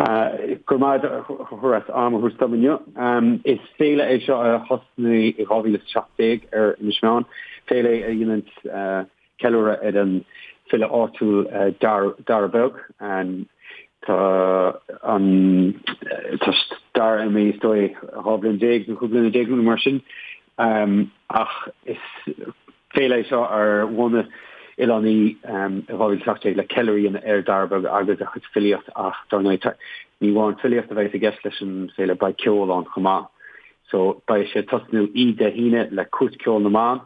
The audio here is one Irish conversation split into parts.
Go raibh maith agat a Chonchúir as am a thabhairt dom inniu. Is féile é seo a thosnaigh i 2017 ar Inis Meáin, féile a dhéanann ceiliúradh ar an file áitiúil Dara Beag. Tá an tá Dara imithe is dóigh 12 bliain nó 15 bliana nó mar sin. Ach is féile é seo ar bhunaigh oileánaigh i 2017 le ceiliúradh a dhéanamh ar Dara Beag agus a chuid filíocht ach dar ndóigh ní amháin filíocht a bheidh i gceist leis an féile, beidh ceol ann chomh maith. So beidh sé ag tosnú oíche Dé hAoine le Cúirt Ceoil na mBan,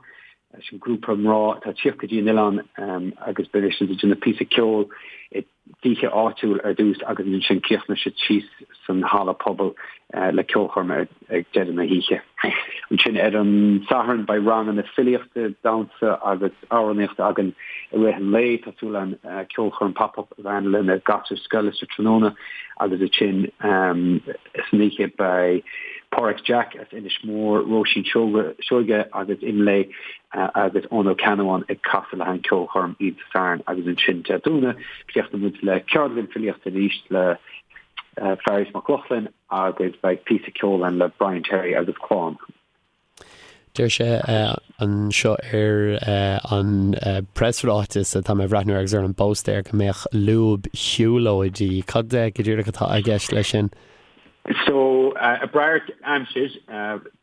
sin grúpa mná atá ag tíocht go dtí an oileán agus beidh siad ag déanamh píosa ceoil i dtithe áitiúil ar dtús agus ansin críochnóidh siad síos san halla pobail le ceolchoirm ag deireadh na hoíche. Ansin ar an Satharn beidh ranganna filíochta, damhsa agus amhránaíochta againn i rith an lae. Tá súil againn ceolchoirm pop-up a bheith ann le na gasúir scoile sa tráthnóna agus ansin san oíche beidh Páraic Jack as Inis Mór, Róisín Seoige agus Imlé agus Eoin Ó Ceannabháin ag casadh le haghaidh an ceolchoirm oíche Sathairn agus ansin Dé Domhnaigh críochnóidh muid le ceardlann filíochta arís le Fearghas Mac Lochlainn agus beidh píosa ceoil ann le Brian Terry agus Clann. Deir sé anseo ar an preasráiteas atá mé ag breathnú air agus ar an bpóstaer go mbeadh lúb-shiúlóidí. Cad go díreach atá i gceist leis sin? So, ag brath ar aimsir,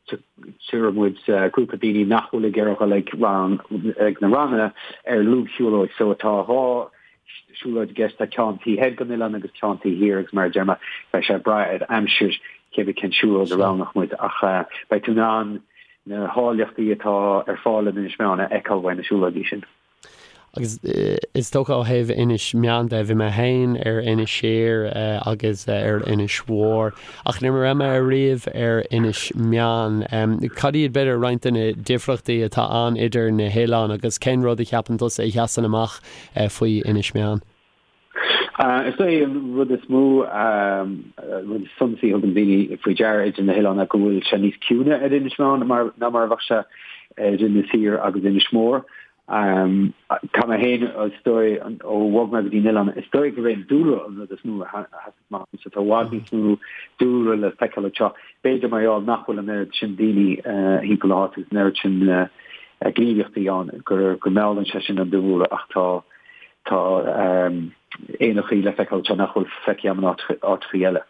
tabharfaidh muid grúpa daoine nach bhfuil ag iarraidh dul ag rang, ag na ranganna ar lúb-shiúlóid. So, tá 2 siúlóid i gceist, tá ceann taobh thoir den oileán agus ceann taobh thiar agus mar a deir mé, beidh sé ag brath ar aimsir cébí cén siúlóid a roghnóidh muid ach beidh tú in ann na háilleachtaí atá ar fáil in Inis Meáin a fheiceáil uaidh na siúlóidí sin. Agus is dócha ó thaobh Inis Meáin de, bhí mé féin ar Inis Oírr agus ar Inis Mhór, ach ní raibh mé ariamh ar Inis Meáin. Cad iad, b'fhéidir, roinnt de na difríochtaí atá ann idir na hoileáin agus cén rud a cheapann tusa a sheasann amach faoi Inis Meáin? Is é an rud is mó, rud is suntasaí a thugann daoine faoi deara idir na hoileáin ná go bhfuil sé níos ciúine ar Inis Meáin ná mar a bheadh sé ar Inis Oírr agus Inis Mór. Tá mé féin, is dóigh, ó bhog mé go dtí an oileán, is dóigh gurb é an dúlra an rud is mó a sheas amach domsa. Tá i bhfad níos mó dúlra le feiceáil anseo. B'fhéidir mar gheall nach bhfuil an oiread sin daoine thimpeall na háite agus an oiread sin gníomhaíochtaí ann go meallann sé sin an dúlra ach tá tá éanachaí le feiceáil anseo nach bhfuil feicthe agam in áiteachaí eile.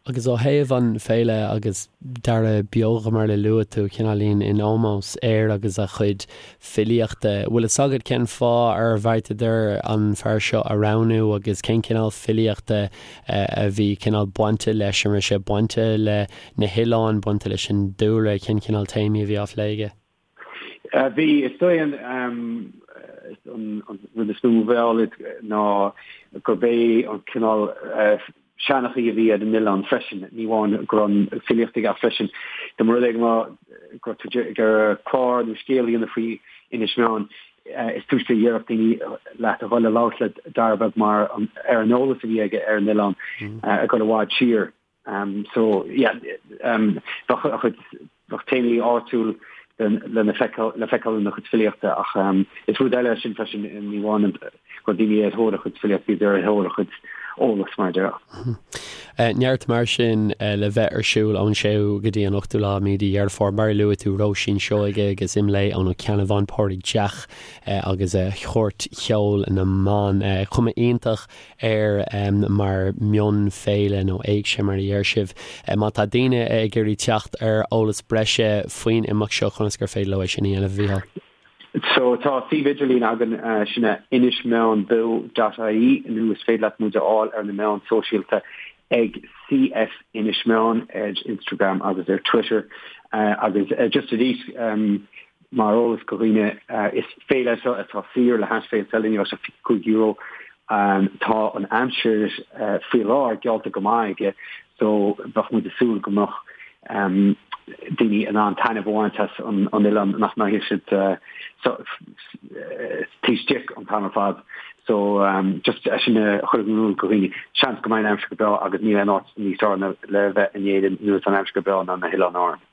Agus ó thaobh an féile agus Dara Beag mar a luaigh tú, cineáilín in ómós air agus a chuid filíochta, bhfuil fhios agat cén fáth ar bheartaíodar an fear seo a roghnú agus cén cineál filíochta a bhí cineál bainte leis, an raibh sé bainte le na hoileáin, bainte leis an dúlra, cén cineál téamaí a bhí á phlé aige? Bhí, is dóigh an rud is mó a mheall iad ná gurb é an cineál seanchaí a bhí ar an oileán freisin, ní amháin go raibh an filíocht aige ach freisin dá mba rud é go raibh tú ag iarraidh clár nó scéal a dhéanamh faoi Inis Meáin, is túisce a déarfadh daoine leat a dhul a labhairt le Dara Beag mar ar an eolas a bhí aige ar an oileán ag dul i bhfad siar. So, yeah, bheadh a chuid, bheadh téamaí áitiúil le feiceáil, le feiceáil ina chuid filíochta ach is rud eile é sin freisin, ní amháin go raibh daoine ar thóir a chuid filíochta, bhíodar ar thóir a chuid eolas mar a déarfá. Neart mar sin le bheith ar siúl ón 6ú go dtí an 8ú lá mí de Dheireadh Fómhair. Mar a luaigh tú, Róisín Seoige agus Imlé Ó Ceannabháin, Pádraig Jack agus Cúirt Cheoil na mBan. Cuma iontach air mar mhionfhéile nó éigse mar a deir sibh. Má tá daoine ag iarraidh teacht ar eolas breise faoin imeacht seo, conas gur féidir leo é sin a dhéanamh, a Mhícheáil? So tá suíomh idirlín againn, sin é inismeánbeo dot ie nó is féidir leat muid a fháil ar na meáin sóisialta ag CF Inis Meáin ar Instagram agus ar Twitter agus just arís Mar eolas do dhaoine, is féile é seo atá saor le hais Féilte Eile, ní bheidh sé €25. Tá an aimsir faoi láthair geallta go maith aige so bheadh muid ag súil go mbeadh daoine in ann taitneamh a bhaint as an oileán, nach mbeidh siad taobh istigh an t-am ar fad. So just é sin a chur in iúl do dhaoine. Seans go mbeidh an aimsir go breá agus níl aon áit níos fearr le bheith in Éirinn nuair atá an aimsir go breá ná na hOileáin Árann.